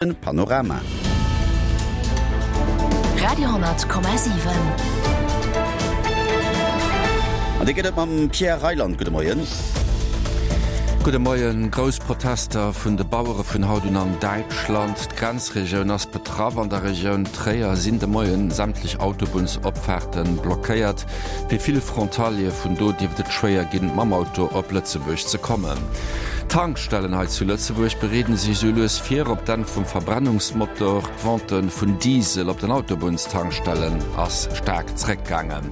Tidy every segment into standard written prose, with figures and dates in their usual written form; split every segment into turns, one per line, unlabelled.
Panorama.
Radio,7.
An dee gëtt et mam Pierre Reyland. Gudde Moien.
Gudde Moien. Grouss Protester vun de Bauere vun haut un an Däitschland. D'Grenzregioun ass betraff. An der Regioun Tréier sinn de Moien sämtlech Autobunnsopfaarte blockéiert. Fir vill Frontaliere vun do dierft et schwéier ginn, mam Auto op Lëtzebuerg ze kommen. D'Tankstellen hei zu Lëtzebuerg bereeden sech esou lues vir op d'Enn vum Verbrennungsmotor. D'Vente vun Diesel op den Autobunnstankstellen ass staark zeréckgaangen.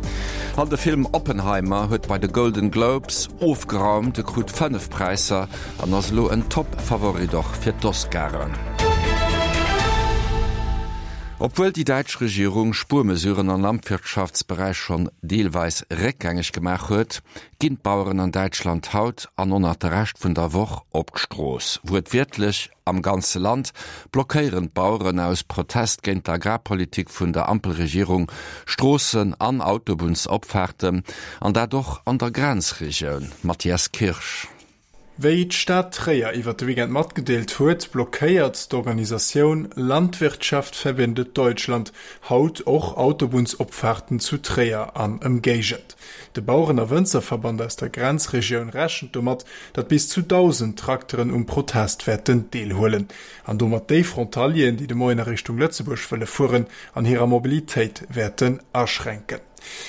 An de Film Oppenheimer huet bei de Golden Globes ofgeraumt, e krut 5 Präisser an ass elo en Top-Favorit och fir d'Oscaren. Obwuel déi däitsch Regierung Spuermesuren am Landwirtschaftsberäich schonn deelweis réckgängeg gemaach huet, ginn d'Baueren an Däitschland haut an och nach de Rescht vun der Woch op d'Strooss. Wuertwiertlech am ganze Land blockéieren d'Baueren aus Protest géint d'Agrarpolitik vun der Ampelregierung Stroossen an Autobunnsopfaarten, an dat och an der Grenzregioun. Mathias Kirsch.
Wéi d'Stad Tréier iwwer de Weekend matgedeelt huet, blockéiert d'Organisatioun Landwirtschaft verbindet Deutschland haut och Autobunnsopfaarten zu Tréier an Ëmgéigend. De Baueren a Wënzerverband aus der Grenzregioun rechent domat, datt bis zu 1.000 Trakteren um Protest wäerten deelhuelen an domat déi Frontalieren, déi de Moien a Richtung Lëtzebuerg wëlle fueren, an hirer Mobilitéit wäerten aschränken.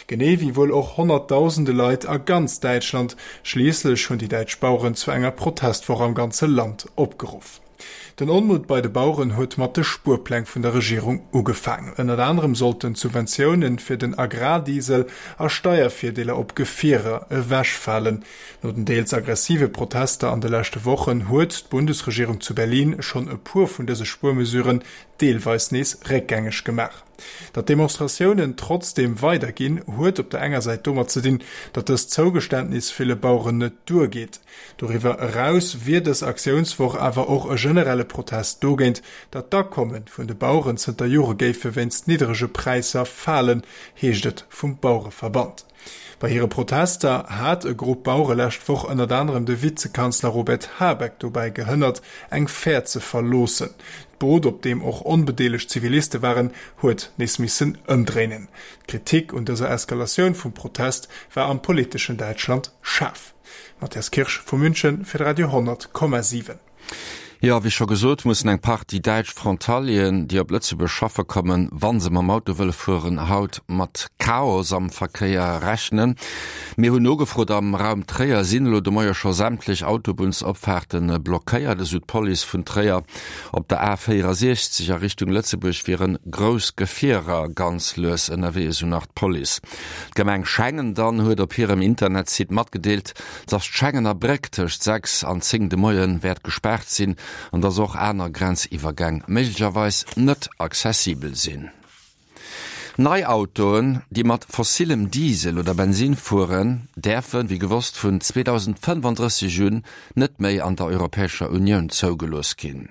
Genee wéi wuel och honnertdausende Leit a ganz Däitschland. Schliisslech hunn déi däitsch Baueren zu enger Protestwoch am ganze Land opgeruff. Den Onmutt bei de Baueren huet mat de Spuerpläng vun der Regierung ugefaangen. Ënnert anerem sollten d'Subventioune fir den Agrardiesel a Steiervirdeeler op Gefierer ewechfalen. No den deels aggressive Protester an de leschte Wochen huet d'Bundesregierung zu Berlin schonn e puer vun dëse Spuermesuren deelweis nees réckgängeg gemaach. Datt d'Demonstratiounen trotzdeem weiderginn, huet op der enger Säit domat ze dinn, datt dëst Zougeständnis ville Baueren net duergeet. Doriwwer eraus wier dës Aktiounswoch awer och e generelle Protest dogéint, datt d'Akomme vun de Baueren zënter Jore géife wéinst nidderege Präisser falen, heescht et vum Bauereverband. Bei hire Protester hat e Grupp Bauere lescht Woch ënnert anerem de Vizekanzler Robert Habeck dobäi gehënnert, eng Fähr ze verloossen. D'Boot, op deem och onbedeelegt Ziviliste waren, huet nees missen ëmdréinen. D'Kritik un dëser Eskalatioun vum Protest war am politeschen Däitschland schaarf. Matthias Kirsch vu München fir de Radio 10,7.
Jo, wéi scho gesot, mussen eng Partie däitsch Frontalieren, déi op Lëtzebuerg schaffe kommen, wa se mam Auto wëlle fueren, haut mat Chaos am Verkéier rechnen. Mir hunn nogefrot, am Raum Tréier sinn elo de Moie scho sämtlech Autobunnsopfaarte blockéiert, esou d'Police vun Tréier. Op der A 64 a Richtung Lëtzebuerg wiere grouss Gefierer ganz lues ënnerwee, esou nach d'Police. D'Gemeng Schengen dann huet op hirem Internetsite matgedeelt, dass d'Schengener Bréck tëscht 6 an 10 de Moie wäert gespaart sinn an dass och aner Grenziwwergäng méiglecherweis net accessibel sinn. Nei Autoen, déi mat fossillem Diesel oder Bensin fueren, däerfen, wéi gewosst, vun 2035 un net méi an der Europäescher Unioun zougelooss ginn.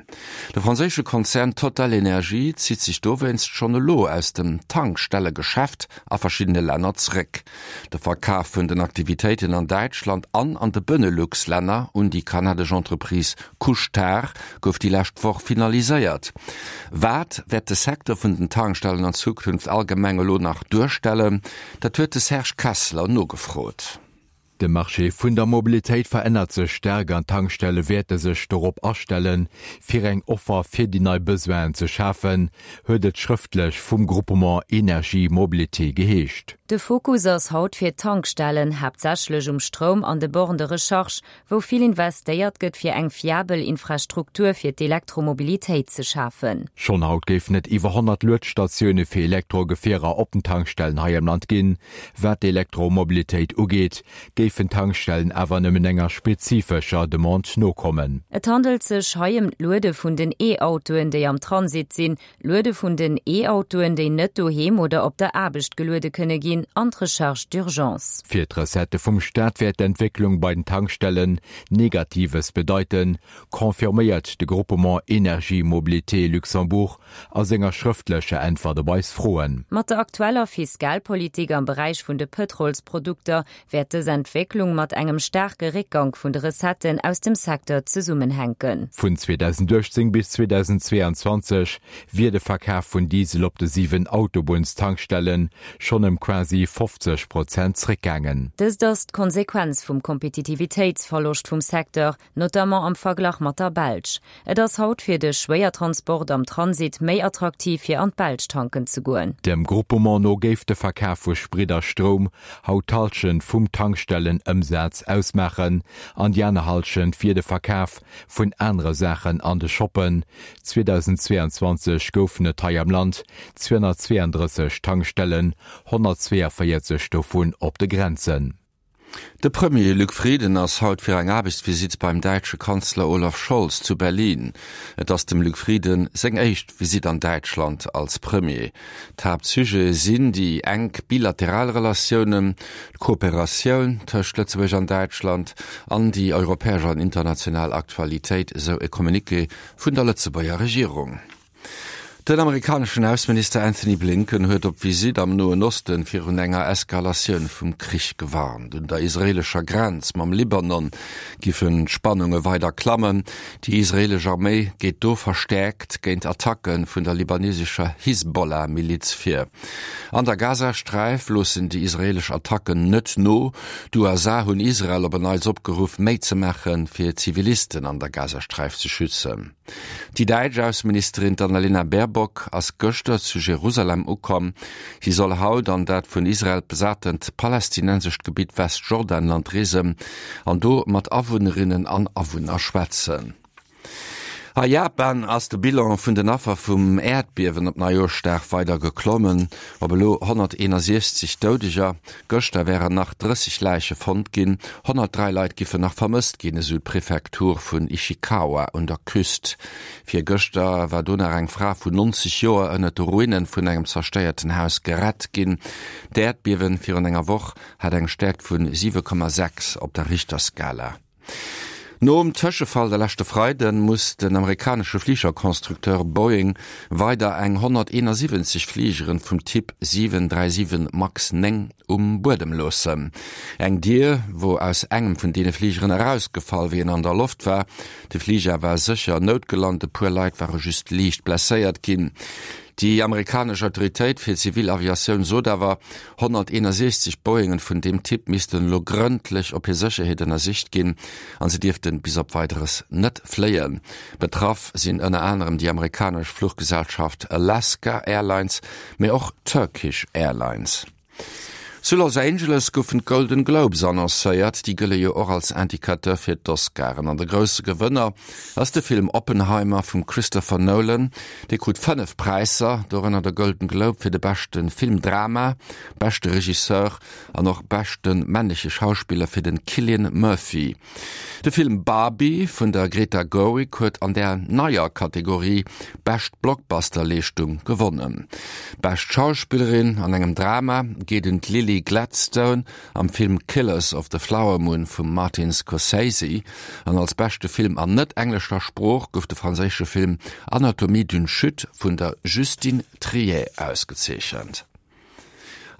De franséische Konzern TotalEnergies zitt sech dowéinst schonn elo aus dem Tankstellegeschäft a verschiddene Länner zréck. De Verkaf vun den Aktivitéiten an Däitschland an an de Benelux-Länner un déi kanadesch Entreprise Couche-Tard gouf déi lescht Woch finaliséiert. Wat wäert de Secteur vun den Tankstellen an Zukunft allgemeng elo nach duerstellen? Dat huet de Serge Kessler nogefrot.
De Marché vun der Mobilitéit verännert sech staark an d'Tankstelle wäerte sech dorop astellen, fir eng Offer fir déi nei Besoinen ze schafen, huet et schrëftlech vum Groupement Energie Mobilité geheescht.
De Fokus ass haut fir d'Tankstellen haaptsächlech um Stroum an de Bornes de recharge, wou vill investéiert gëtt fir eng fiabel Infrastruktur fir d'Elektromobilitéit ze schafen.
Schonn haut géifen et iwwer 100 Luedstatioune fir Elektrogefierer op den Tankstellen hei am Land ginn. Wat d'Elektromobilitéit ugeet, géifen d'Tankstellen awer nëmmen enger spezifescher Demande nokommen.
Et handelt sech hei ëm d'Luede vun den E-Autoen, déi am Transit sinn, d'Luede vun den E-Autoen, déi net doheem oder op der Aarbecht geluede kënne ginn an d'Recharge d'urgence.
Fir d'Recettë vum Staat wäert d'Entwécklung bei den Tankstellen Negatives bedeiten, confirméiert de Groupement Energie Mobilité Luxembourg a senger schrëftlecher Äntwert op eis Froen.
Mat der aktueller Fiskalpolitik am Beräich vun de Pëtrolsprodukter wäert dës Entwécklung. Entwécklung mat engem staarke Réckgank vun de Recetten aus dem Secteur zesummenhänken.
Vun 2018 bis 2022 wier de Verkaf vun Diesel op de 7 Autobunnstankstelle schonn ëm quasi 50 Prozent zréckgaangen.
Dëst ass d'Konsequenz vum Kompetitivitéitsverloscht vum Secteur, notamment am Verglach mat der Belsch. Et ass haut fir de Schwéiertransport am Transit méi attraktiv fir an d'Belsch tanken ze goen.
Dem Groupement no géif de Verkaf vu Sprit a Stroum haut d'Hallschent vum Tankstellenëmsaz ausmaachen an déi aner Hallschent wier de Verkaf vun anere Saachen an de Shoppen. 2022 goufen et hei am Land 232 Tankstellen, 142 dovun op de Grenzen.
De Premier Luc Frieden ass haut fir eng Aarbechtsvisitt beim däitsche Kanzler Olaf Scholz zu Berlin. Et ass dem Luc Frieden seng éischt Visitt an Däitschland als Premier. D'Haaptsujete sinn déi enk bilateral Relatiounen, d'Kooperatioun tëscht Lëtzebuerg an Däitschland an déi europäesch an international Aktualitéit, esou e Communiqué vun der Lëtzebuerger Regierung. Den amerikaneschen Ausseminister Anthony Blinken huet op Visitt am Noen Osten virun enger Eskalatioun vum Krich gewarnt. Un der israeelescher Grenz mam Libanon giffen d'Spannunge weider klammen. Déi israeelesch Arméi geet do verstäerkt géint Attacke vun der libanesescher Hisbollah-Miliz vir. An der Gazasträif loossen déi israeelesch Attacken net no. D'USA hunn Israel op en Neits opgeruff, méi ze maachen, fir Zivilisten an der Gazasträif ze schützen. Déi däitsch Ausseministerin d'Annalena Baerbock ass gëschter zu Jerusalem ukomm. Si soll haut an dat vun Israel besatent palästinensescht Gebitt Westjordanland reesen an do mat Awunnerinnen an Awunner schwätzen. A Japan ass de Bilan vun den Affer vum Äerdbiewen op Neijoerschdag weider geklommen op elo 161 Doudeger. Gëschter wären nach 30 Läiche fonnt ginn, 103 Leit giffen nach vermësst ginn, esou d'Prefektur vun Ishikawa un der Küst. Virgëschter war do nach eng Fra vun 90 Joer ënnert de Ruine vun engem zerstéierten Haus gerett ginn. D'Äerdbiewen virun enger Woch hat eng Stäerkt vun 7,6 op der Richterskala. Nom Tëschefall de leschte Freide muss den amerikanesche Fligerconstructeur Boeing weider eng 171 Fligeren vum Typ 737 Max 9 um Buedem loossen. Eng Dier wor aus engem vun deene Fligeren erausgefall, wéi en an der Loft war. De Fliger war sécher noutgelant, e puer Leit ware just liicht blesséiert ginn. Déi amerikanesch Autoritéit fir zivil Aviatioun sot awer, 161 Boeingen vun deem Typ missten elo grëndlech op hir Sécherheet ënnersicht ginn an se dierften bis op Weideres net fléien. Betraff sinn ënner anerem déi amerikanesch Fluchgesellschaft Alaska Airlines, mee och Turkish Airlines. Zu Los Angeles goufen d'Golden Globes annoncéiert. Déi gëlle jo och als Indicateur fir d'Oscaren. An de grousse Gewënner ass de Film Oppenheimer vum Christopher Nolan. Dee krut 5 Präisser, dorënner de Golden Globe fir de beschte Filmdrama, beschte Regisseur an och beschte männleche Schauspiller fir de Cillian Murphy. De Film Barbie vun der Greta Gerwig huet an der neier Kategorie Bescht Blockbuster-Leeschtung gewonnen. Bescht Schauspillerin an engem Drama geet un d'Lily Gladstone am Film Killers of the Flower Moon vum Martin Scorsese an als beschte Film an net-englescher Sprooch gouf de franséische Film Anatomie d'une chute vun der Justine Triet ausgezeechent.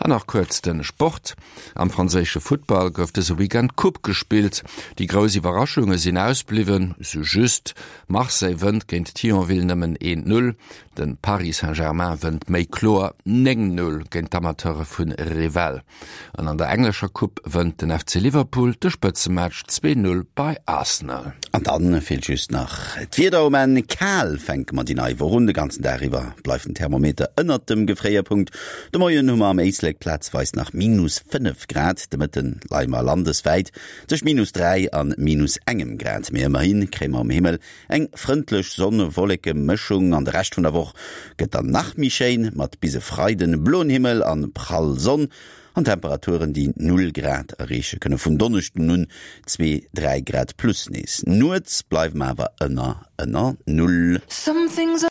An nach kuerz de Sport, Am franséische Futtball gouf dëse Weekend d'Coupe gespillt. Déi grouss Iwwerraschunge sinn ausbliwwen, sou just Marseille wënnt géint Thionville nëmmen 1, 0, de Paris Saint-Germain wënnt méi kloer 9, 0 géint d'Amateure vu Revel. An an der englescher Coupe wënnt den FC Liverpool de Spëtzematch 2, 0 bei Arsenal.
An dann feelt just nach d'Wieder um Enn. Kal fänke mer déi nei Woch un. De ganzen Dag iwwer bleift den Thermometer ënnert dem Gefréierpunkt. De Moien hu mer am Éislek plazweis nach minus 5 Grad, de Mëtte leie mer landeswäit tëscht minus 3 an minus engem Grad. Mee ëmmerhi kréie mer um Himmel eng frëndlech Sonn-Wolleke-Mëschung an de Rescht vun der Woch gëtt dann nach méi schéin, mat bis e Freiden bloen Himmel an prall Sonn an Temperaturen, déi Null Grad erreeche kënne. Vun Donneschden un zwee, 3 Grad plus nees. Nuets bleiwe mer awer ënner ënner Null.